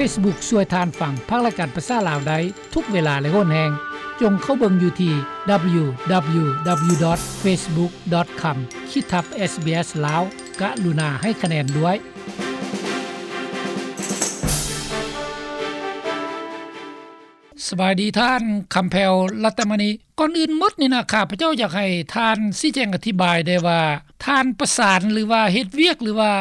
ເຟສບຸກຊ່ວຍທ່ານຟັງພາກລາຍການພາສາລາວໄດ້ທຸກເວລາ ແລະ ໂຫນແຮງ. ຈົ່ງເຂົ້າເບິ່ງຢູ່ທີ່ ດັບເບິນຢູ ດັບເບິນຢູ ດັບເບິນຢູ ດອດ ເຟສບຸກ ດອດ ຄອມ ຂີດທັບ ເອສບີເອສ ລາວ. ກະລຸນາໃຫ້ຄະແນນດ້ວຍ. ສະບາຍດີທ່ານ ຄຳແພວ ລັດຕະມະນີ. ກ່ອນອື່ນໝົດນີ້ນະ ຂ້າພະເຈົ້າຢາກໃຫ້ທ່ານຊີ້ແຈງອະທິບາຍໄດ້ວ່າ ທ່ານປະສານ ຫຼືວ່າເຮັດວຽກ ຫຼືວ່າ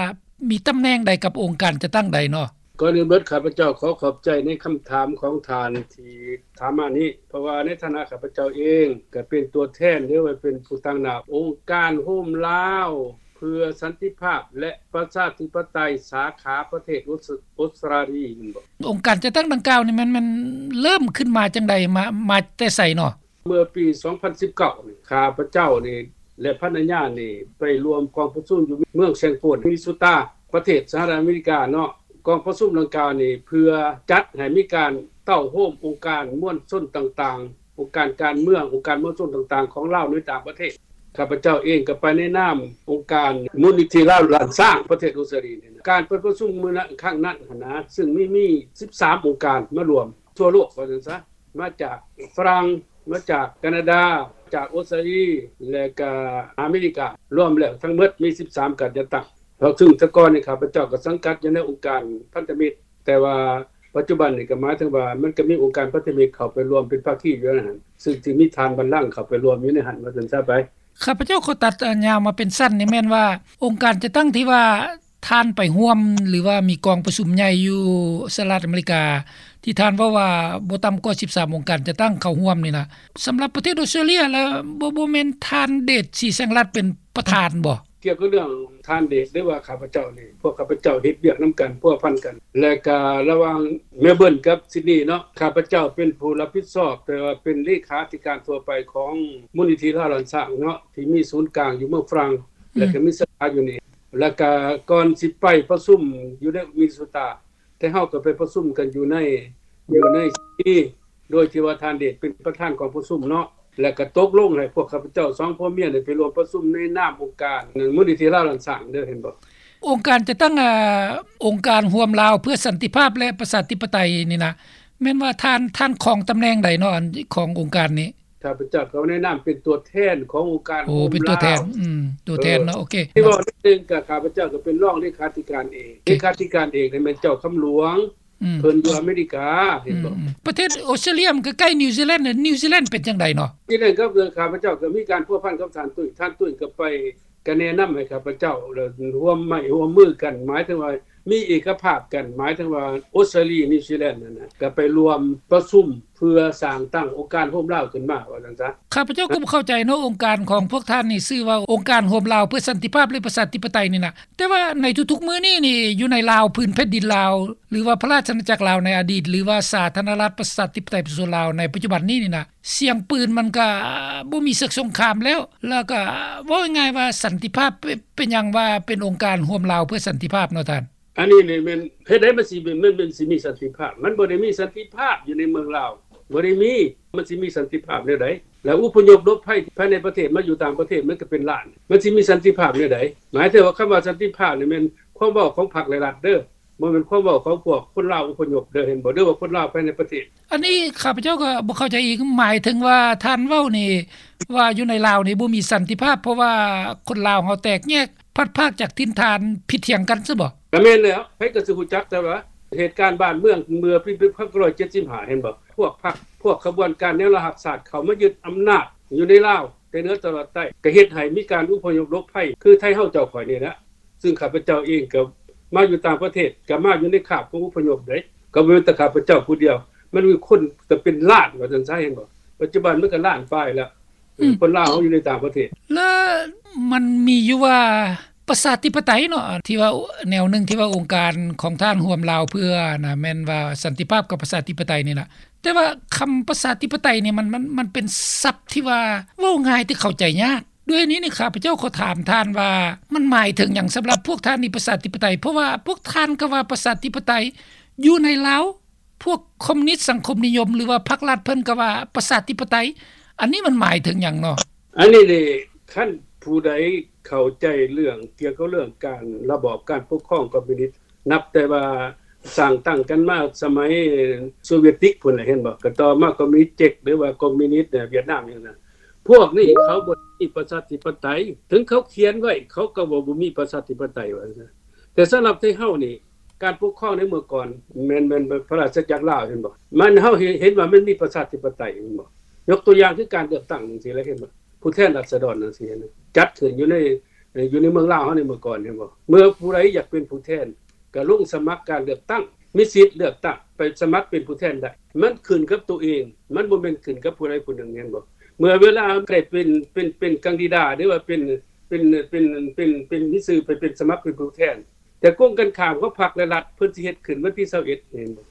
ມີຕຳແໜ່ງໃດກັບອົງການຈັດຕັ້ງໃດເນາະ? ກ່ອນອື່ນໝົດ ຂ້າພະເຈົ້າຂໍຂອບໃຈໃນຄຳຖາມຂອງທ່ານທີ່ຖາມມານີ້ ເພາະວ່າໃນຖານະຂ້າພະເຈົ້າເອງ ກະເປັນຕົວແທນ ຫຼືວ່າເປັນຜູ້ຕາງໜ້າອົງການໂຮມລາວ ເພື່ອສັນຕິພາບ ແລະ ປະຊາທິປະໄຕ ສາຂາປະເທດອົດສະ ອົດສະຕຣາລີ ແມ່ນບໍ່? ອົງການຈັດຕັ້ງດັ່ງກ່າວນີ້ ມັນ ມັນເລີ່ມຂຶ້ນມາຈັ່ງໃດ? ມາ ມາແຕ່ໃສເນາະ? ເມື່ອປີສອງພັນສິບເກົ້ານີ້ ຂ້າພະເຈົ້ານີ້ ແລະ ພັນລະຍານີ້ ໄປຮ່ວມກອງປະຊຸມຢູ່ເມືອງແຊງຟອນ ມິນນິໂຊຕາ ປະເທດສະຫະລັດອາເມລິກາເນາະ. ກອງປະຊຸມດັ່ງກ່າວນີ້ ເພື່ອຈັດໃຫ້ມີການເຕົ້າໂຮມອົງການມວນຊົນຕ່າງໆ ອົງການການເມືອງ, ອົງການມວນຊົນຕ່າງໆຂອງລາວໃນຕ່າງປະເທດ. ຂ້າພະເຈົ້າເອງກໍໄປໃນນາມອົງການມູນນິທິລາວລ້ານຊ້າງປະເທດອົດສະຕຣາລີນີ້ນະ. ການໄປປະຊຸມມື້ນັ້ນ ຄັ້ງນັ້ນຫັ້ນນະ ຊຶ່ງມີ ມີສິບສາມອົງການມາຮ່ວມທົ່ວໂລກວ່າຊັ້ນຊະ, ມາຈາກຝຣັ່ງ, ມາຈາກການາດາ, ຈາກອົດສະຕຣາລີ ແລະກະອາເມລິກາ, ລວມແລ້ວທັງໝົດມີສິບສາມການຈັດຕັ້ງ. ເພາະຊຶ່ງແຕ່ກ່ອນນີ້ຂ້າພະເຈົ້າກໍສັງກັດຢູ່ໃນອົງການພັນທະມິດ, ແຕ່ວ່າປັດຈຸບັນນີ້ກໍໝາຍເຖິງວ່າມັນກໍມີອົງການພັນທະມິດເຂົ້າໄປຮ່ວມເປັນພາຄີຢູ່ໃນຫັ້ນ, ຊຶ່ງທີ່ມີທ່ານບັນລັງເຂົ້າໄປຮ່ວມຢູ່ໃນຫັ້ນ ວ່າຊັ້ນຊະໄປ. ຂ້າພະເຈົ້າຂໍຕັດ ອາ ຍາວມາເປັນສັ້ນນີ້ແມ່ນວ່າ ອົງການຈັດຕັ້ງທີ່ວ່າທ່ານໄປຮ່ວມ ຫຼືວ່າມີກອງປະຊຸມໃຫຍ່ຢູ່ສະຫະລັດອາເມລິກາ ທີ່ທ່ານເວົ້າວ່າບໍ່ຕ່ຳກວ່າສິບສາມອົງການຈັດຕັ້ງເຂົ້າຮ່ວມນີ້ນະ, ສຳລັບປະເທດອົດສະຕຣາເລຍລະ ບໍ່ ບໍ່ແມ່ນທ່ານເດດ ສີແສງລັດ ເປັນປະທານບໍ່? ກ່ຽວກັບເລື່ອງທ່ານເດດ ຫຼືວ່າຂ້າພະເຈົ້ານີ້ ພວກຂ້າພະເຈົ້າເຮັດວຽກນຳກັນ ພົວພັນກັນ ແລະກະລະຫວ່າງເມລເບີນກັບຊິດນີເນາະ, ຂ້າພະເຈົ້າເປັນຜູ້ຮັບຜິດຊອບ ແຕ່ວ່າເປັນເລຂາທິການທົ່ວໄປຂອງມູນນິທິລາວລ້ານຊ້າງເນາະ ທີ່ມີສູນກາງຢູ່ເມືອງຝຣັ່ງ ແລະກະມີສາຂາຢູ່ນີ້. ແລະກະກ່ອນຊິໄປປະຊຸມຢູ່ໃນມິນນິໂຊຕາ ແຕ່ເຮົາກໍໄປປະຊຸມກັນຢູ່ໃນ ຢູ່ໃນ ໂດຍທີ່ວ່າທ່ານເດດເປັນປະທານກອງປະຊຸມເນາະ, ແລະກໍຕົກລົງໃຫ້ພວກຂ້າພະເຈົ້າສອງຜົວເມຍໄດ້ໄປຮ່ວມປະຊຸມໃນນາມອົງການມູນນິທິລາວລ້ານຊ້າງເດີ ເຫັນບໍ່? ອົງການຈັດຕັ້ງ ອາ ອົງການຮ່ວມລາວເພື່ອສັນຕິພາບ ແລະ ປະຊາທິປະໄຕນີ້ນະ, ແມ່ນວ່າທ່ານ ທ່ານຄອງຕຳແໜ່ງໃດເນາະ ອັນ ຂອງອົງການນີ້? ຂ້າພະເຈົ້າກໍໃນນາມເປັນຕົວແທນຂອງອົງການ ໂອ້ ເປັນຕົວແທນ ອືມ ຕົວແທນເນາະ ເອີ ໂອເຄ ທີ່ເວົ້າເອງກໍ ຂ້າພະເຈົ້າກໍເປັນຮອງເລຂາທິການເອກ ເລຂາທິການເອກນີ້ແມ່ນເຈົ້າຄຳຫຼວງ ອືມ ເພິ່ນຢູ່ອາເມລິກາ ເຫັນບໍ່? ອືມ ປະເທດອົດສະຕຣາເລຍມັນກໍໃກ້ນິວຊີແລນ ນິວຊີແລນເປັນຈັ່ງໃດເນາະ? ທີ່ນັ້ນກໍຄືຂ້າພະເຈົ້າກໍມີການພົວພັນກັບທ່ານຕຸ້ຍ ທ່ານຕຸ້ຍກໍໄປ ກໍແນະນຳໃຫ້ຂ້າພະເຈົ້າ ແລ້ວຮ່ວມໄມ້ຮ່ວມມືກັນ ໝາຍເຖິງວ່າມີເອກະພາບກັນ ໝາຍເຖິງວ່າອົດສະຕຣາລີ ນິວຊີແລນນັ້ນນະ ກໍໄປຮ່ວມປະຊຸມເພື່ອສ້າງຕັ້ງອົງການໂຮມລາວຂຶ້ນມາ ວ່າຊັ້ນຊະ. ຂ້າພະເຈົ້າກໍບໍ່ເຂົ້າໃຈເນາະ ອົງການຂອງພວກທ່ານນີ້ຊື່ວ່າອົງການໂຮມລາວເພື່ອສັນຕິພາບ ແລະ ປະຊາທິປະໄຕນີ້ນະ, ແຕ່ວ່າໃນທຸກໆມື້ນີ້ນີ້ ຢູ່ໃນລາວ ພື້ນແຜ່ນດິນລາວ ຫຼືວ່າພະລາຊະອານາຈັກລາວໃນອະດີດ ຫຼືວ່າສາທາລະນະລັດປະຊາທິປະໄຕປະຊາຊົນລາວໃນປັດຈຸບັນນີ້ນີ້ນະ ສຽງປືນມັນກະບໍ່ມີເສຍງສົງຄາມແລ້ວ ແລ້ວກະເວົ້າງ່າຍໆວ່າສັນຕິພາບ ເປັນ ເປັນຫຍັງວ່າເປັນອົງການຮ່ວມລາວເພື່ອສັນຕິພາບເນາະທ່ານ? ອັນນີ້ນີ້ແມ່ນ ເຮັດໃດມັນຊິ ມັນ ມັນຊິມີສັນຕິພາບ? ມັນບໍ່ໄດ້ມີສັນຕິພາບຢູ່ໃນເມືອງລາວ ບໍ່ໄດ້ມີ. ມັນຊິມີສັນຕິພາບແນວໃດ? ແລ້ວອົບພະຍົບຫຼົບໄພພາຍໃນປະເທດມາຢູ່ຕ່າງປະເທດ ມັນກໍເປັນລ້ານ ມັນຊິມີສັນຕິພາບແນວໃດ? ໝາຍເຖິງວ່າຄຳວ່າສັນຕິພາບນີ້ແມ່ນຄວາມເວົ້າຂອງພັກ ແລະ ລັດເດີ. ບໍ່ແມ່ນຄວາມເວົ້າຂອງພວກຄົນລາວອົບພະຍົບເດີ ເຫັນບໍ່? ຫຼືວ່າຄົນລາວພາຍໃນປະເທດ. ອັນນີ້ຂ້າພະເຈົ້າກໍບໍ່ເຂົ້າໃຈອີກ ໝາຍເຖິງວ່າທ່ານເວົ້ານີ້ວ່າຢູ່ໃນລາວນີ້ບໍ່ມີສັນຕິພາບ ເພາະວ່າຄົນລາວເຮົາແຕກແຍກ ພັດພາກຈາກຖິ່ນຖານ ຜິດຖຽງກັນຊະບໍ? ກໍແມ່ນແລ້ວ ໃຜກໍຊິຮູ້ຈັກ ແຕ່ວ່າເຫດການບ້ານເມືອງເມື່ອປີໜຶ່ງພັນເກົ້າຮ້ອຍເຈັດສິບຫ້າ ເຫັນບໍ່? ພວກພັກ ພວກຂະບວນການແນວລາວຮັກຊາດເຂົ້າມາຍຶດອຳນາດຢູ່ໃນລາວ ແຕ່ເໜືອຕະຫຼອດໃຕ້ ກໍເຮັດໃຫ້ມີການອົບພະຍົບຫຼົບໄພ ຄືໄທເຮົາເຈົ້າຂ້ອຍນີ້ແຫຼະ. ຊຶ່ງຂ້າພະເຈົ້າເອງກໍມາຢູ່ຕ່າງປະເທດ ກໍມາຢູ່ໃນຄາບຂອງອົບພະຍົບເດ້ ກໍບໍ່ແມ່ນແຕ່ຂ້າພະເຈົ້າຜູ້ດຽວ ມັນມີຄົນເປັນລ້ານ ວ່າຊັ້ນຊະ ເຫັນບໍ່? ປັດຈຸບັນມັນກໍລ້ານປາຍແລ້ວ ອືມ ຄົນລາວເຮົາຢູ່ໃນຕ່າງປະເທດ. ແລ້ວມັນມີຢູ່ວ່າປະຊາທິປະໄຕເນາະ ທີ່ວ່າແນວໜຶ່ງທີ່ວ່າອົງການຂອງທ່ານຮ່ວມລາວເພື່ອນະ ແມ່ນວ່າສັນຕິພາບກັບປະຊາທິປະໄຕນີ້ນະ ແຕ່ວ່າຄຳປະຊາທິປະໄຕນີ້ ມັນ ມັນ ມັນເປັນສັບທີ່ວ່າເວົ້າງ່າຍແຕ່ເຂົ້າໃຈຍາກ. ດ້ວຍນີ້ນີ້ ຂ້າພະເຈົ້າຂໍຖາມທ່ານວ່າ ມັນໝາຍເຖິງຫຍັງສຳລັບພວກທ່ານນີ້ ປະຊາທິປະໄຕ? ເພາະວ່າພວກທ່ານກໍວ່າປະຊາທິປະໄຕ ຢູ່ໃນລາວ ພວກຄອມມູນິດສັງຄົມນິຍົມ ຫຼືວ່າພັກລັດເພິ່ນກໍວ່າປະຊາທິປະໄຕ ອັນນີ້ມັນໝາຍເຖິງຫຍັງເນາະ? ອັນນີ້ນີ້ ຄັນຜູ້ໃດເຂົ້າໃຈເລື່ອງ ກ່ຽວກັບເລື່ອງການ ລະບອບການປົກຄອງຄອມມູນິດ ນັບແຕ່ວ່າ ສ້າງຕັ້ງກັນມາສະໄໝໂຊວຽດຕິກພຸ້ນແຫຼະ ເຫັນບໍ່? ກໍຕໍ່ມາຄອມມິວນິດເຈັກ ຫຼືວ່າຄອມມິວນິດຫວຽດນາມຫຍັງນັ້ນ ພວກນີ້ເຂົາບໍ່ມີປະຊາທິປະໄຕ. ເຖິງເຂົາຂຽນໄວ້ ເຂົາກໍວ່າບໍ່ມີປະຊາທິປະໄຕ ວ່າຊັ້ນ. ແຕ່ສຳລັບໄທເຮົານີ້ ການປົກຄອງໃນເມື່ອກ່ອນ ແມ່ນ ແມ່ນພະລາຊະຈັກລາວ ເຫັນບໍ່? ມັນ ເຮົາເຫັນ ເຫັນວ່າມັນມີປະຊາທິປະໄຕ ແມ່ນບໍ່? ຍົກຕົວຢ່າງຄືການເລືອກຕັ້ງຈັ່ງຊີ້ແຫຼະ ເຫັນບໍ່? ຜູ້ແທນລາຊະດອນຈັ່ງຊີ້ ເຫັນບໍ່? ຈັດຂຶ້ນຢູ່ໃນ ຢູ່ໃນເມືອງລາວເຮົາໃນເມື່ອກ່ອນ ເຫັນບໍ່? ເມື່ອຜູ້ໃດຢາກເປັນຜູ້ແທນ ກໍລົງສະໝັກການເລືອກຕັ້ງ ມີສິດເລືອກຕັ້ງ ໄປສະໝັກເປັນຜູ້ແທນໄດ້. ມັນຂຶ້ນກັບໂຕເອງ ມັນບໍ່ແມ່ນຂຶ້ນກັບຜູ້ໃດຜູ້ໜຶ່ງ ເຫັນບໍ່? ເມື່ອເວລາໄດ້ເປັນ ເປັນ ເປັນກັນດິດາດ ຫຼືວ່າເປັນ ເປັນ ເປັນ ເປັນ ເປັນມີຊື່ໄປເປັນສະໝັກເປັນຜູ້ແທນ ແຕ່ກົງກັນຂ້າມຂອງພັກ ແລະ ລັດ ເພິ່ນຊິເຮັດຂຶ້ນວັນທີຊາວເອັດ ເຫັນບໍ່?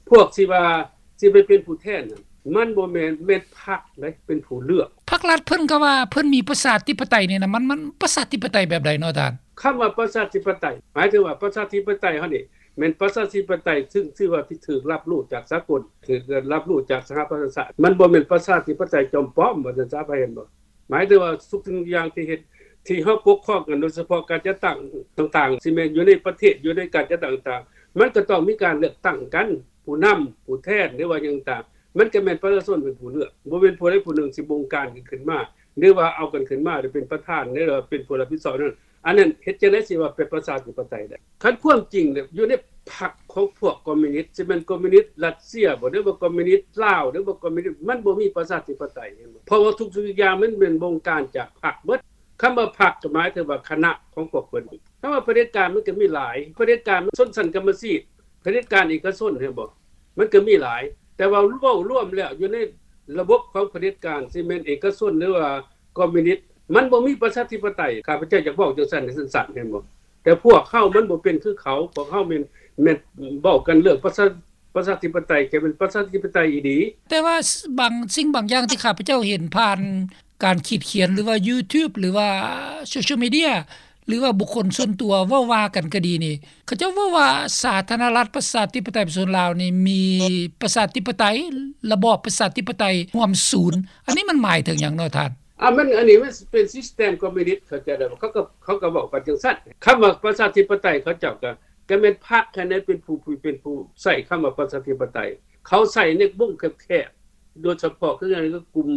ພວກທີ່ວ່າຊິໄປເປັນຜູ້ແທນນັ້ນ ມັນບໍ່ແມ່ນ ແມ່ນພັກເດ້ເປັນຜູ້ເລືອກ. ພັກລັດເພິ່ນກໍວ່າເພິ່ນມີປະຊາທິປະໄຕນີ້ນະ ມັນ ມັນປະຊາທິປະໄຕແບບໃດເນາະທ່ານ? ຄຳວ່າປະຊາທິປະໄຕ ໝາຍເຖິງວ່າປະຊາທິປະໄຕເຮົານີ້ ແມ່ນປະຊາທິປະໄຕ ຊຶ່ງຖືວ່າທີ່ຖືກຮັບຮູ້ຈາກສາກົນ ຖືກຮັບຮູ້ຈາກສະຫະປະຊາຊາດ. ມັນບໍ່ແມ່ນປະຊາທິປະໄຕຈອມປອມ ວ່າຊັ້ນຊະ ເຫັນບໍ່? ໝາຍເຖິງວ່າທຸກສິ່ງທຸກຢ່າງທີ່ເຮັດ ທີ່ເຮົາປົກຄອງກັນ ໂດຍສະເພາະການຈັດຕັ້ງຕ່າງໆ ຊິແມ່ນຢູ່ໃນປະເທດ ຢູ່ໃນການຈັດຕັ້ງຕ່າງໆ ມັນກໍຕ້ອງມີການເລືອກຕັ້ງກັນ ຜູ້ນຳ ຜູ້ແທນ ຫຼືວ່າຫຍັງຕ່າງໆ ມັນກໍແມ່ນປະຊາຊົນເປັນຜູ້ເລືອກ ບໍ່ແມ່ນຜູ້ໃດຜູ້ໜຶ່ງຊິບົງການກັນຂຶ້ນມາ ຫຼືວ່າເອົາກັນຂຶ້ນມາ ຫຼືເປັນປະທານ ຫຼືວ່າເປັນຜູ້ຮັບຜິດຊອບນັ້ນ. ອັນນັ້ນເຮັດຈັ່ງໃດຊິວ່າເປັນປະຊາທິປະໄຕໄດ້? ຄັນຄວາມຈິງແລ້ວ ຢູ່ໃນພັກຂອງພວກຄອມມິວນິດ ຊິແມ່ນຄອມມິວນິດຣັດເຊຍບໍ ຫຼືວ່າຄອມມິວນິດລາວ ຫຼືວ່າຄອມມິວນິດ ມັນບໍ່ມີປະຊາທິປະໄຕ ເຫັນບໍ່? ເພາະວ່າທຸກສິ່ງທຸກຢ່າງມັນແມ່ນບົງການຈາກພັກເບິດ. ຄຳວ່າພັກກໍໝາຍເຖິງວ່າຄະນະຂອງພວກເພິ່ນ. ຄຳວ່າຜະເດັດການມັນກໍມີຫຼາຍ ຜະເດັດການຊົນຊັ້ນກຳມະສິດ ຜະເດັດການເອກະຊົນ ເຫັນບໍ່? ມັນກໍມີຫຼາຍ ແຕ່ວ່າເວົ້າລວມແລ້ວ ຢູ່ໃນລະບົບຂອງຜະເດັດການ ຊິແມ່ນເອກະຊົນ ຫຼືວ່າຄອມມິວນິດ ມັນບໍ່ມີປະຊາທິປະໄຕ. ຂ້າພະເຈົ້າຢາກເວົ້າຈັ່ງຊັ້ນ ໃຫ້ສັ້ນໆ ເຫັນບໍ່? ແຕ່ພວກເຮົາມັນບໍ່ເປັນຄືເຂົາ ພວກເຮົາແມ່ນ ແມ່ນເວົ້າກັນເລື່ອງປະຊາ ປະຊາທິປະໄຕ ແຕ່ເປັນປະຊາທິປະໄຕອີ່ຫຼີ. ແຕ່ວ່າບາງສິ່ງບາງຢ່າງທີ່ຂ້າພະເຈົ້າເຫັນຜ່ານການຂີດຂຽນ ຫຼືວ່າ YouTube ຫຼືວ່າ Social Media ຫຼືວ່າບຸກຄົນສ່ວນຕົວເວົ້າວ່າກັນກໍດີນີ້ ເຂົາເຈົ້າເວົ້າວ່າສາທາລະນະລັດປະຊາທິປະໄຕປະຊາຊົນລາວນີ້ມີປະຊາທິປະໄຕ ລະບອບປະຊາທິປະໄຕຮ່ວມສູນ. ອັນນີ້ມັນໝາຍເຖິງຫຍັງເນາະທ່ານ? ອ່າ ມັນ ອັນນີ້ມັນເປັນ system ຄອມມິວນິດ ເຂົາເຈົ້າ ເຂົາກໍ ເຂົາກໍເວົ້າກັນຈັ່ງຊັ້ນ. ຄຳວ່າປະຊາທິປະໄຕ ເຂົາເຈົ້າກໍ ກໍແມ່ນພັກຫັ້ນແຫຼະ ເປັນຜູ້ ເປັນຜູ້ໃຊ້ຄຳວ່າປະຊາທິປະໄຕ. ເຂົາໃຊ້ໃນວົງແຄບໆ ໂດຍສະເພາະຄືກັນກັບກຸ່ມ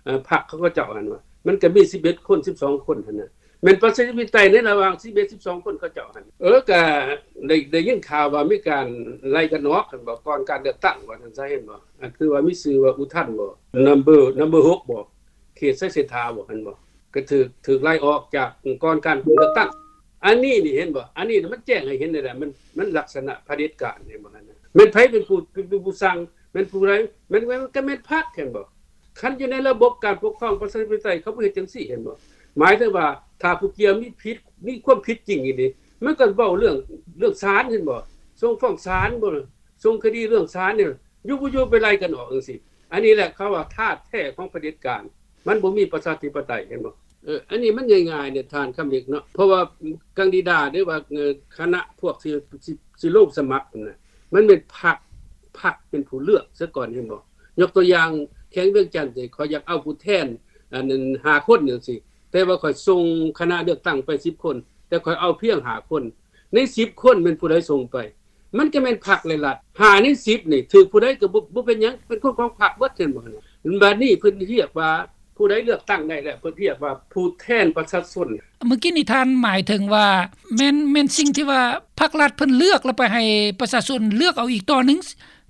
ເອີ ພັກຂອງເຂົາເຈົ້າຫັ້ນວ່າ ມັນກໍມີສິບເອັດຄົນ ສິບສອງຄົນຫັ້ນນະ ແມ່ນປະຊາທິປະໄຕໃນລະຫວ່າງສິບເອັດ ສິບສອງຄົນເຂົາເຈົ້າຫັ້ນ. ເອີ ກະໄດ້ ໄດ້ຍິນຂ່າວວ່າມີການໄລ່ກັນອອກ ຄັນບອກ ກ່ອນການເລືອກຕັ້ງ ວ່າຊັ້ນຊະ ເຫັນບໍ່? ອັນຄືວ່າມີຊື່ວ່າອຸທັນບໍ number number ຫົກບໍ ເຂດໄຊເສດຖາບໍ ເຫັນບໍ່? ກໍຖືກ ຖືກໄລ່ອອກຈາກ ກ່ອນການເລືອກຕັ້ງ. ອັນນີ້ນີ້ ເຫັນບໍ່? ອັນນີ້ມັນແຈ້ງໃຫ້ເຫັນໄດ້ແຫຼະ ມັນ ມັນລັກສະນະຜະເດັດການ ເຫັນບໍ່? ຫັ້ນນະ ແມ່ນໃຜເປັນຜູ້ ເປັນ ເປັນຜູ້ສັ່ງ? ແມ່ນຜູ້ໃດ? ແມ່ນ ແມ່ນ ກໍແມ່ນພັກ ເຫັນບໍ່? ຄັນຢູ່ໃນລະບົບການປົກຄອງປະຊາທິປະໄຕ ເຂົາບໍ່ເຮັດຈັ່ງຊີ້ ເຫັນບໍ່? ໝາຍເຖິງວ່າ ຖ້າຜູ້ກ່ຽວມີຜິດ ມີຄວາມຜິດຈິງອີ່ຫຼີ ມັນກໍເວົ້າເລື່ອງ ເລື່ອງສານ ເຫັນບໍ່? ສົ່ງຟ້ອງສານບໍ? ສົ່ງຄະດີເລື່ອງສານນີ້ ຢູ່ບໍ່ຢູ່ໄປໄລ່ກັນອອກຈັ່ງຊີ້. ອັນນີ້ແຫຼະເຂົາວ່າທາດແທ້ຂອງຜະເດັດການ ມັນບໍ່ມີປະຊາທິປະໄຕ ເຫັນບໍ່? ເອີ ອັນນີ້ມັນງ່າຍໆເດທ່ານຄຳເລັກເນາະ ເພາະວ່າກັນດິດາ ຫຼືວ່າ ເອີ ຄະນະພວກທີ່ ທີ່ ທີ່ລົງສະໝັກຫັ້ນນະ ມັນແມ່ນພັກ ພັກເປັນຜູ້ເລືອກຊະກ່ອນ ເຫັນບໍ່? ຍົກຕົວຢ່າງແຂວງວຽງຈັນ ຂ້ອຍຢາກເອົາຜູ້ແທນ ອັນນັ້ນ ຫ້າຄົນຈັ່ງຊີ້ ແຕ່ວ່າຂ້ອຍສົ່ງຄະນະເລືອກຕັ້ງໄປສິບຄົນ ແຕ່ຂ້ອຍເອົາພຽງຫ້າຄົນ ໃນສິບຄົນແມ່ນຜູ້ໃດສົ່ງໄປ? ມັນກໍແມ່ນພັກ ແລະ ລັດ. ຫ້າໃນສິບນີ້ຖືກຜູ້ໃດກໍບໍ່ ບໍ່ເປັນຫຍັງ ເປັນຄົນຂອງພັກເບິດ ເຫັນບໍ່? ບັດນີ້ເພິ່ນຮຽກວ່າ ຜູ້ໃດເລືອກຕັ້ງໄດ້ແລ້ວ ເພິ່ນຮຽກວ່າຜູ້ແທນປະຊາຊົນ. ເມື່ອກີ້ນີ້ທ່ານໝາຍເຖິງວ່າ ແມ່ນ ແມ່ນສິ່ງທີ່ວ່າພັກລັດເພິ່ນເລືອກ ແລ້ວໄປໃຫ້ປະຊາຊົນເລືອກເອົາອີກຕໍ່ໜຶ່ງ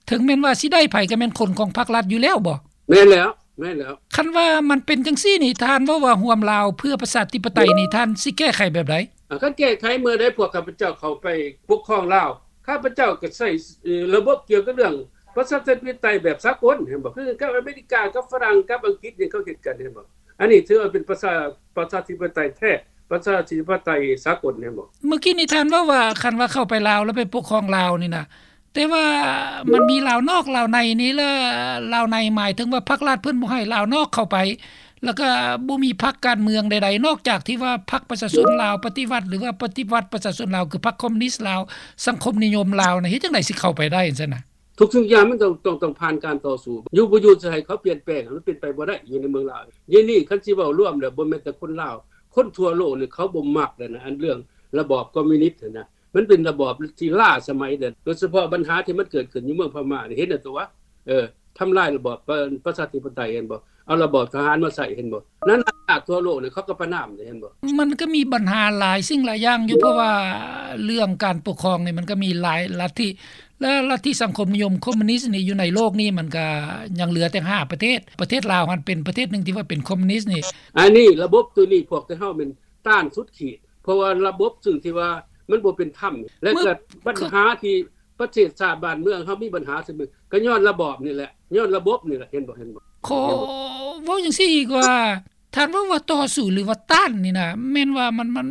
ເຖິງແມ່ນວ່າຊິໄດ້ໃຜ ກໍແມ່ນຄົນຂອງພັກລັດຢູ່ແລ້ວບໍ? ແມ່ນແລ້ວ ແມ່ນແລ້ວ. ຄັນວ່າມັນເປັນຈັ່ງຊີ້ນີ້ ທ່ານເວົ້າວ່າຮ່ວມລາວເພື່ອປະຊາທິປະໄຕນີ້ ທ່ານຊິແກ້ໄຂແບບໃດ? ອ່າ ຄັນແກ້ໄຂເມື່ອໃດພວກຂ້າພະເຈົ້າເຂົ້າໄປປົກຄອງລາວ ຂ້າພະເຈົ້າກໍໃຊ້ ເອີ ລະບົບກ່ຽວກັບເລື່ອງປະຊາທິປະໄຕແບບສາກົນ ເຫັນບໍ່? ຄືກັບອາເມລິກາ ກັບຝຣັ່ງ ກັບອັງກິດນີ້ ເຂົາເຮັດກັນ ເຫັນບໍ່? ອັນນີ້ຖືວ່າເປັນປະຊາ ປະຊາທິປະໄຕແທ້ ປະຊາທິປະໄຕສາກົນ ເຫັນບໍ່? ເມື່ອກີ້ນີ້ທ່ານເວົ້າວ່າ ຄັນວ່າເຂົ້າໄປລາວ ແລ້ວໄປປົກຄອງລາວນີ້ນະ ແຕ່ວ່າມັນມີລາວນອກລາວໃນນີ້ ແລະ ລາວໃນໝາຍເຖິງວ່າພັກລັດເພິ່ນບໍ່ໃຫ້ລາວນອກເຂົ້າໄປ ແລ້ວກໍບໍ່ມີພັກການເມືອງໃດໆ ນອກຈາກທີ່ວ່າພັກປະຊາຊົນລາວປະຕິວັດ ຫຼືວ່າປະຕິວັດປະຊາຊົນລາວ ຄືພັກຄອມມູນິດລາວ ສັງຄົມນິຍົມລາວນະ ເຮັດຈັ່ງໃດຊິເຂົ້າໄປໄດ້ຊັ້ນນະ? ທຸກສິ່ງຢ່າງມັນຕ້ອງ ຕ້ອງ ຕ້ອງຜ່ານການຕໍ່ສູ້ ຢູ່ບໍ່ຢູ່ຈະໃຫ້ເຂົາປ່ຽນແປງ ມັນເປັນໄປບໍ່ໄດ້ ຢູ່ໃນເມືອງລາວ. ດຽວນີ້ຄັນຊິເວົ້າລວມແລ້ວ ບໍ່ແມ່ນແຕ່ຄົນລາວ ຄົນທົ່ວໂລກນີ້ເຂົາບໍ່ມັກແລ້ວນະ ອັນເລື່ອງລະບອບຄອມມູນິດຫັ້ນນະ. ມັນເປັນລະບອບທີ່ລ້າສະໄໝເດ້ ໂດຍສະເພາະບັນຫາທີ່ມັນເກີດຂຶ້ນຢູ່ເມືອງພະມ້ານີ້ ເຫັນແລ້ວຕົວະ ເອີ ທຳລາຍລະບອບປະ ປະຊາທິປະໄຕ ເຫັນບໍ່? ເອົາລະບອບທະຫານມາໃຊ້ ເຫັນບໍ່? ນັ້ນລາກທົ່ວໂລກນີ້ ເຂົາກໍປະນາມເດ້ ເຫັນບໍ່? ມັນກໍມີບັນຫາຫຼາຍສິ່ງຫຼາຍຢ່າງຢູ່ ເພາະວ່າເລື່ອງການປົກຄອງນີ້ ມັນກໍມີຫຼາຍລັດທິ ແລະ ລັດທິສັງຄົມນິຍົມຄອມມູນິດນີ້ ຢູ່ໃນໂລກນີ້ ມັນກໍຍັງເຫຼືອແຕ່ຫ້າປະເທດ. ປະເທດລາວຫັ້ນເປັນປະເທດໜຶ່ງທີ່ວ່າເປັນຄອມມູນິດນີ້. ອັນນີ້ລະບົບໂຕນີ້ ພວກເຮົາແມ່ນຕ້ານສຸດຂີດ ເພາະວ່າລະບົບຊຶ່ງທີ່ວ່າມັນບໍ່ເປັນທຳ ແລະ ເມື່ອ ກໍບັນຫາທີ່ປະເທດຊາດບ້ານເມືອງເຮົາມີບັນຫາ ກໍຍ້ອນລະບອບນີ້ແຫຼະ ຍ້ອນລະບົບນີ້ແຫຼະ ເຫັນບໍ່? ເຫັນບໍ່? ຂໍເວົ້າຈັ່ງຊີ້ອີກວ່າ ທ່ານເວົ້າວ່າຕໍ່ສູ້ ຫຼືວ່າຕ້ານນີ້ນະ ແມ່ນວ່າມັນ ມັນ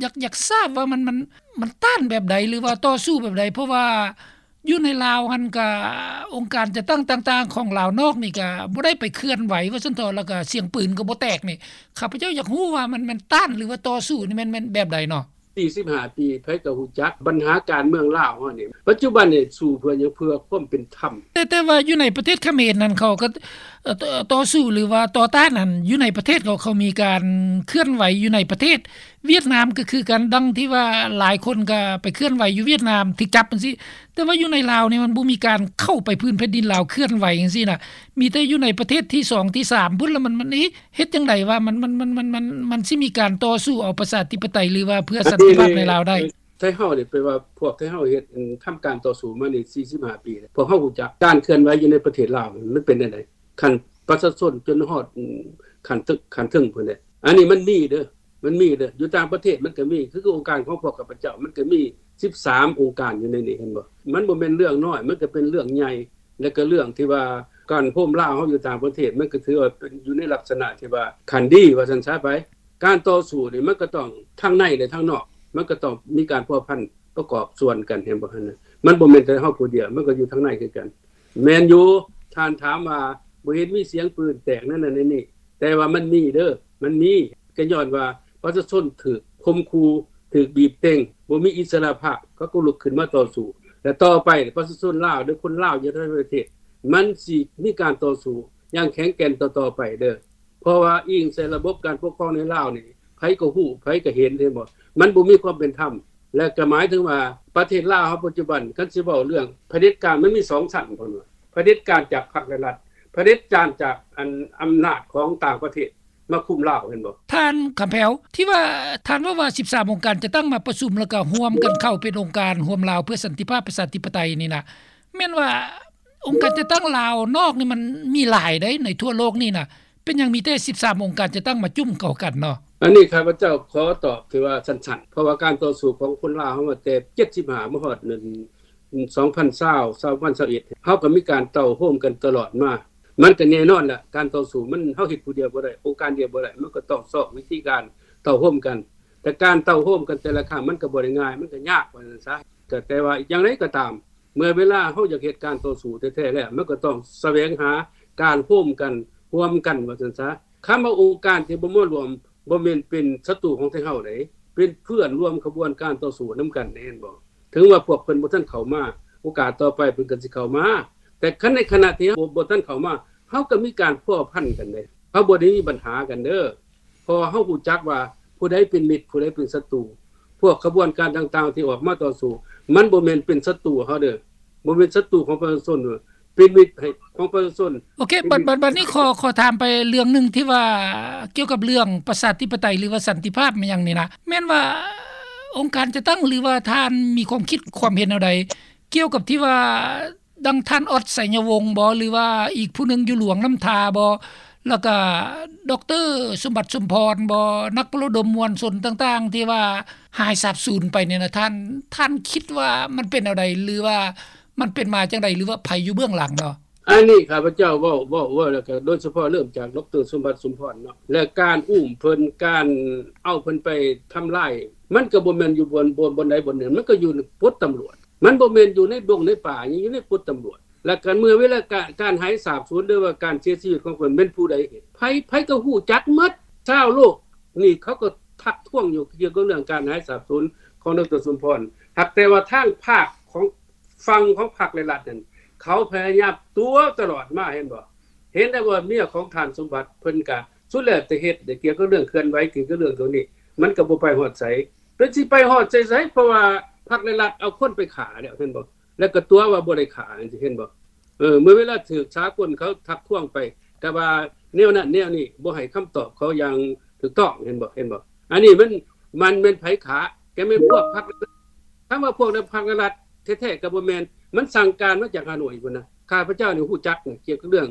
ຢາກ ຢາກຊາບວ່າມັນ ມັນ ມັນຕ້ານແບບໃດ ຫຼືວ່າຕໍ່ສູ້ແບບໃດ? ເພາະວ່າຢູ່ໃນລາວຫັ້ນກະ ອົງການຈັດຕັ້ງຕ່າງໆຂອງລາວນອກນີ້ກະບໍ່ໄດ້ໄປເຄື່ອນໄຫວວ່າຊັ້ນເຖາະ ແລ້ວກະສຽງປືນກໍບໍ່ແຕກນີ້ ຂ້າພະເຈົ້າຢາກຮູ້ວ່າມັນ ມັນຕ້ານ ຫຼືວ່າຕໍ່ສູ້ນີ້ ແມ່ນ ແມ່ນແບບໃດເນາະ? ສີ່ສິບຫ້າປີ ໃຜກໍຮູ້ຈັກບັນຫາການເມືອງລາວເຮົານີ້ ປັດຈຸບັນນີ້ສູ້ເພື່ອຫຍັງ? ເພື່ອຄວາມເປັນທຳ. ແຕ່ ແຕ່ວ່າຢູ່ໃນປະເທດຂະເໝນນັ້ນ ເຂົາກໍ ເອີ ຕໍ່ສູ້ ຫຼືວ່າຕໍ່ຕ້ານນັ້ນ ຢູ່ໃນປະເທດເຂົາ ເຂົາມີການເຄື່ອນໄຫວຢູ່ໃນປະເທດ. ຫວຽດນາມກໍຄືກັນ ດັ່ງທີ່ວ່າຫຼາຍຄົນກໍໄປເຄື່ອນໄຫວຢູ່ຫວຽດນາມ ຖືກຈັບຈັ່ງຊີ້. ແຕ່ວ່າຢູ່ໃນລາວນີ້ ມັນບໍ່ມີການເຂົ້າໄປພື້ນແຜ່ນດິນລາວເຄື່ອນໄຫວຈັ່ງຊີ້ນະ ມີແຕ່ຢູ່ໃນປະເທດທີສອງທີສາມພຸ້ນ ລະມັນ ມັນ ເອະ ເຮັດຈັ່ງໃດວ່າມັນ ມັນ ມັນ ມັນ ມັນ ມັນຊິມີການຕໍ່ສູ້ເອົາປະຊາທິປະໄຕ ຫຼືວ່າເພື່ອສັນຕິພາບໃນລາວໄດ້? ໄທເຮົານີ້ ແປວ່າພວກໄທເຮົາເຮັດ ທຳການຕໍ່ສູ້ມານີ້ສີ່ສິບຫ້າປີແລ້ວ ພວກເຮົາຮູ້ຈັກການເຄື່ອນໄຫວຢູ່ໃນປະເທດລາວມັນເປັນແນວໃດ ຂັ້ນປະຊາຊົນຈົນຮອດ ອືມ ຂັ້ນເທິງ ຂັ້ນເທິງພຸ້ນແຫຼະ. ອັນນີ້ມັນມີເດີ ມັນມີເດີ ຢູ່ຕ່າງປະເທດມັນກໍມີ ຄື ຄືອົງການຂອງພວກຂ້າພະເຈົ້າ ມັນກໍມີສິບສາມອົງການຢູ່ໃນນີ້ ເຫັນບໍ່? ມັນບໍ່ແມ່ນເລື່ອງນ້ອຍ ມັນກໍເປັນເລື່ອງໃຫຍ່ ແລະ ກໍເລື່ອງທີ່ວ່າການໂຮມລາວເຮົາຢູ່ຕ່າງປະເທດ ມັນກໍຖືວ່າເປັນຢູ່ໃນລັກສະນະທີ່ວ່າຂັ້ນດີວ່າຊັ້ນຊະໄປ. ການຕໍ່ສູ້ນີ້ມັນກໍຕ້ອງທັງໃນ ແລະ ທັງນອກ ມັນກໍຕ້ອງມີການພົວພັນປະກອບສ່ວນກັນ ເຫັນບໍ່ຫັ້ນນະ? ມັນບໍ່ແມ່ນແຕ່ເຮົາຜູ້ດຽວ ມັນກໍຢູ່ທາງໃນຄືກັນ. ແມ່ນຢູ່ ທ່ານຖາມວ່າບໍ່ເຫັນມີສຽງປືນແຕກນັ້ນນັ້ນນີ້ ແຕ່ວ່າມັນມີເດີ ມັນມີ ກໍຍ້ອນວ່າປະຊາຊົນຖືກຂົ່ມຂູ່ ຖືກບີບເຕັງ ບໍ່ມີອິດສະຫຼະພາບ ເຂົາກໍລຸກຂຶ້ນມາຕໍ່ສູ້ ແລະ ຕໍ່ໄປປະຊາຊົນລາວ ຫຼື ຄົນລາວຢູ່ໃນປະເທດ ມັນຊິມີການຕໍ່ສູ້ຢ່າງແຂງແກ່ນຕໍ່ໆໄປເດີ. ເພາະວ່າອີງໃສ່ລະບົບການປົກຄອງໃນລາວນີ້ ໃຜກໍຮູ້ ໃຜກໍເຫັນ ເຫັນບໍ່? ມັນບໍ່ມີຄວາມເປັນທຳ ແລະ ກໍໝາຍເຖິງວ່າປະເທດລາວເຮົາປັດຈຸບັນ ຄັນຊິເວົ້າເລື່ອງຜະເດັດການ ມັນມີສອງຊັ້ນ ເພິ່ນວ່າ ຜະເດັດການຈາກພັກ ແລະ ລັດ ຜະເດັດການຈາກ ອັນ ອຳນາດຂອງຕ່າງປະເທດມາຄຸມລາວ ເຫັນບໍ່? ທ່ານຄຳແພ້ວ ທີ່ວ່າທ່ານເວົ້າວ່າສິບສາມອົງການຈັດຕັ້ງມາປະຊຸມ ແລ້ວກໍຮ່ວມກັນເຂົ້າເປັນອົງການຮ່ວມລາວເພື່ອສັນຕິພາບປະຊາທິປະໄຕນີ້ນະ ແມ່ນວ່າອົງການຈັດຕັ້ງລາວນອກນີ້ມັນມີຫຼາຍໃດ໋ ໃນທົ່ວໂລກນີ້ນະ ເປັນຫຍັງມີແຕ່ສິບສາມອົງການຈັດຕັ້ງມາຈຸ້ມເຂົ້າກັນເນາະ? ອັນນີ້ຂ້າພະເຈົ້າຂໍຕອບທີ່ວ່າສັ້ນໆ ເພາະວ່າການຕໍ່ສູ້ຂອງຄົນລາວເຮົາມາແຕ່ເຈັດສິບຫ້າມາຮອດ ສອງພັນຊາວ ສອງພັນຊາວເອັດ ເຮົາກໍມີການເຕົ້າໂຮມກັນຕະຫຼອດມາ. ມັນກໍແນ່ນອນລະ ການຕໍ່ສູ້ມັນ ເຮົາເຮັດຜູ້ດຽວບໍ່ໄດ້ ອົງການດຽວບໍ່ໄດ້ ມັນກໍຕ້ອງຊອກວິທີການເຕົ້າໂຮມກັນ. ແຕ່ການເຕົ້າໂຮມກັນແຕ່ລະຄັ້ງ ມັນກໍບໍ່ໄດ້ງ່າຍ ມັນກໍຍາກວ່າຊັ້ນຊະ. ກໍແຕ່ວ່າຢ່າງໃດກໍຕາມ ເມື່ອເວລາເຮົາຢາກເຮັດການຕໍ່ສູ້ແທ້ໆແລ້ວ ມັນກໍຕ້ອງສະແຫວງຫາການໂຮມກັນ ຮ່ວມກັນວ່າຊັ້ນຊະ. ຄຳວ່າອົງການທີ່ບໍ່ມາຮ່ວມ ບໍ່ແມ່ນເປັນສັດຕູຂອງໄທເຮົາເດ້ ເປັນເພື່ອນຮ່ວມຂະບວນການຕໍ່ສູ້ນຳກັນ ເຫັນບໍ່? ເຖິງວ່າພວກເພິ່ນບໍ່ທັນເຂົ້າມາ ໂອກາດຕໍ່ໄປເພິ່ນກໍຊິເຂົ້າມາ ແຕ່ຄັນໃນຂະນະທີ່ເຮົາບໍ່ ບໍ່ທັນເຂົ້າມາ ເຮົາກໍມີການພົວພັນກັນເດ້ ເຮົາບໍ່ໄດ້ມີບັນຫາກັນເດີ ເພາະວ່າເຮົາຮູ້ຈັກວ່າຜູ້ໃດເປັນມິດ ຜູ້ໃດເປັນສັດຕູ. ພວກຂະບວນການຕ່າງໆທີ່ອອກມາຕໍ່ສູ້ ມັນບໍ່ແມ່ນເປັນສັດຕູເຮົາເດີ ບໍ່ແມ່ນສັດຕູຂອງປະຊາຊົນເດີ ເປັນມິດໃຫ້ ຂອງປະຊາຊົນ. ໂອເຄ ບັດ ບັດ ບັດນີ້ຂໍ ຂໍຖາມໄປເລື່ອງໜຶ່ງທີ່ວ່າກ່ຽວກັບເລື່ອງປະຊາທິປະໄຕ ຫຼືວ່າສັນຕິພາບຫຍັງນີ້ນະ ແມ່ນວ່າອົງການຈັດຕັ້ງ ຫຼືວ່າທ່ານມີຄວາມຄິດຄວາມເຫັນແນວໃດ ກ່ຽວກັບທີ່ວ່າ ດັ່ງທ່ານອອດ ໄຊຍະວົງບໍ ຫຼືວ່າອີກຜູ້ໜຶ່ງຢູ່ຫຼວງນ້ຳທາບໍ ແລ້ວກະ ດອກເຕີ ສົມບັດ ສົມພອນບໍ ນັກປະລະດົມມວນຊົນຕ່າງໆ ທີ່ວ່າຫາຍສາບສູນໄປນີ້ນະ ທ່ານ ທ່ານຄິດວ່າມັນເປັນແນວໃດ ຫຼືວ່າມັນເປັນມາຈັ່ງໃດ ຫຼືວ່າໃຜຢູ່ເບື້ອງຫຼັງເນາະ? ອັນນີ້ຂ້າພະເຈົ້າເວົ້າ ເວົ້າ ເວົ້າແລ້ວກະໂດຍສະເພາະເລີ່ມຈາກ ດອກເຕີ ສົມບັດ ສົມພອນເນາະ ແລະ ການອຸ້ມເພິ່ນ ການເອົາເພິ່ນໄປທຳລາຍ ມັນກະບໍ່ແມ່ນຢູ່ບ່ອນ ບ່ອນ ບ່ອນໃດບ່ອນໜຶ່ງ ມັນກະຢູ່ປົດຕຳຫຼວດ ມັນບໍ່ແມ່ນຢູ່ໃນດົງໃນປ່າ ຍັງຢູ່ໃນປົດຕຳຫຼວດ ແລະ ການ ເມື່ອເວລາການ ການຫາຍສາບສູນ ຫຼືວ່າການເສຍຊີວິດຂອງເພິ່ນແມ່ນຜູ້ໃດເຮັດ ໃຜ ໃຜກໍຮູ້ຈັກໝົດ ຊາວໂລກນີ້ເຂົາກໍທັກທ້ວງຢູ່ກ່ຽວກັບເລື່ອງການຫາຍສາບສູນຂອງ ດອກເຕີ ສົມພອນ ຫາກແຕ່ວ່າທາງພາກຂອງ ຝັ່ງຂອງພັກ ແລະ ລັດນັ້ນ ເຂົາພະຍາຍາມຕົວະຕະຫຼອດມາ ເຫັນບໍ່? ເຫັນແລ້ວວ່າເມຍຂອງທ່ານສົມບັດ ເພິ່ນກະສຸດແລ້ວແຕ່ເຮັດ ໄດ້ກ່ຽວກັບເລື່ອງເຄື່ອນໄຫວ ກ່ຽວກັບເລື່ອງໂຕນີ້ ມັນກະບໍ່ໄປຮອດໃສ ເພິ່ນຊິໄປຮອດໃສໆ ເພາະວ່າພັກລັດໆເອົາຄົນໄປຂ້າແລ້ວ ເຫັນບໍ່? ແລ້ວກໍຕົວະວ່າບໍ່ໄດ້ຂ້າ ເຫັນບໍ່? ເອີ ເມື່ອເວລາຖືກສາກົນເຂົາທັກທວງໄປ ກໍວ່າແນວນັ້ນແນວນີ້ ບໍ່ໃຫ້ຄຳຕອບເຂົາຢ່າງຖືກຕ້ອງ ເຫັນບໍ່? ເຫັນບໍ່? ອັນນີ້ມັນ ມັນແມ່ນໃຜຂ້າ? ກໍແມ່ນພວກພັກ ຖາມວ່າພວກໃນພັກລັດແທ້ໆກໍບໍ່ແມ່ນ ມັນສັ່ງການມາຈາກຮ່າໂນ້ຍພຸ້ນນະ. ຂ້າພະເຈົ້ານີ້ຮູ້ຈັກນະ ກ່ຽວກັບເລື່ອງ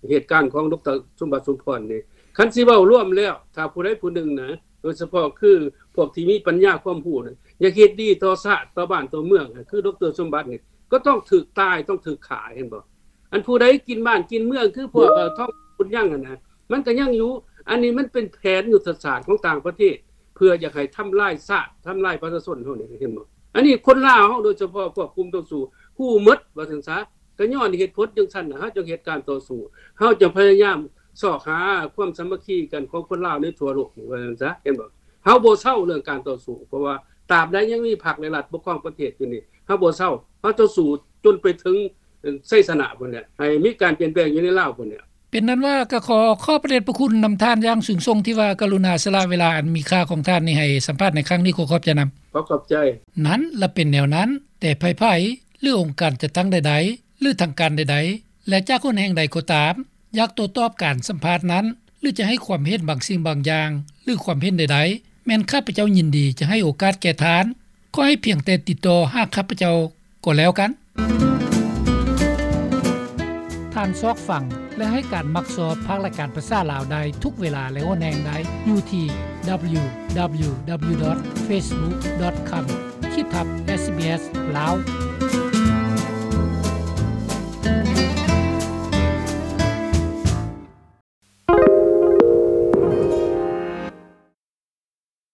ເຫດການຂອງ ດຣ. ສົມບັດ ສົມພອນນີ້ ຄັນຊິເວົ້າລວມແລ້ວ ຖ້າຜູ້ໃດຜູ້ໜຶ່ງນະ ໂດຍສະເພາະຄືພວກທີ່ມີປັນຍາຄວາມຮູ້ນະ ຢາກເຮັດດີຕໍ່ຊາດ ຕໍ່ບ້ານ ຕໍ່ເມືອງ ຄື ດຣ. ສົມບັດນີ້ ກໍຕ້ອງຖືກຕາຍ ຕ້ອງຖືກຂ້າ ເຫັນບໍ່? ອັນຜູ້ໃດກິນບ້ານກິນເມືອງ ຄືພວກ ເອີ ທອງບຸນຍັງຫັ້ນນະ ມັນກໍຍັງຢູ່. ອັນນີ້ມັນເປັນແຜນຍຸດທະສາດຂອງຕ່າງປະເທດ ເພື່ອຢາກໃຫ້ທຳລາຍຊາດ ທຳລາຍປະຊາຊົນເຮົານີ້ ເຫັນບໍ່? ອັນນີ້ຄົນລາວເຮົາ ໂດຍສະເພາະພວກກຸ່ມຕໍ່ສູ້ ຮູ້ໝົດວ່າຊັ້ນຊະ. ກໍຍ້ອນເຫດຜົນຈັ່ງຊັ້ນນະ ເຮົາຈຶ່ງເຮັດການຕໍ່ສູ້ ເຮົາຈຶ່ງພະຍາຍາມຊອກຫາຄວາມສາມັກຄີກັນຂອງຄົນລາວໃນທົ່ວໂລກນີ້ ວ່າຊັ້ນຊະ ເຫັນບໍ່? ເຮົາບໍ່ເຊົາເລື່ອງການຕໍ່ສູ້ ເພາະວ່າຕາບໃດຍັງມີພັກ ແລະ ລັດປົກຄອງປະເທດຢູ່ນີ້ ເຮົາບໍ່ເຊົາ ເຮົາຈະສູ້ຈົນໄປເຖິງໄຊຊະນະພຸ້ນແຫຼະ ໃຫ້ມີການປ່ຽນແປງຢູ່ໃນລາວພຸ້ນແຫຼະ. ເປັນນັ້ນວ່າ ກໍຂໍຂອບພະເດດພະຄຸນນຳທ່ານຢ່າງສູງສົ່ງ ທີ່ວ່າກະລຸນາສະຫຼະເວລາອັນມີຄ່າຂອງທ່ານນີ້ໃຫ້ສຳພາດໃນຄັ້ງນີ້. ຂໍຂອບໃຈນຳ. ຂໍຂອບໃຈ. ນັ້ນລະເປັນແນວນັ້ນ, ແຕ່ໃຜໆ ຫຼື ອົງການຈັດຕັ້ງໃດໆ ຫຼື ທາງການໃດໆ ແລະ ຈາກຫົນແຫ່ງໃດກໍຕາມ ຢາກໂຕ້ຕອບການສຳພາດນັ້ນ ຫຼື ຈະໃຫ້ຄວາມເຫັນບາງສິ່ງບາງຢ່າງ ຫຼື ຄວາມເຫັນໃດໆ ແມ່ນຂ້າພະເຈົ້າຍິນດີຈະໃຫ້ໂອກາດແກ່ທ່ານ. ຂໍໃຫ້ພຽງແຕ່ຕິດຕໍ່ຫາຂ້າພະເຈົ້າກໍແລ້ວກັນ. ທ່ານຊອກຟັງ ແລະ ໃຫ້ການມັກຊອບພາກລາຍການພາສາລາວໄດ້ທຸກເວລາ ແລະ ຫົນແຫ່ງໃດຢູ່ທີ່ www.facebook.com/sbs lao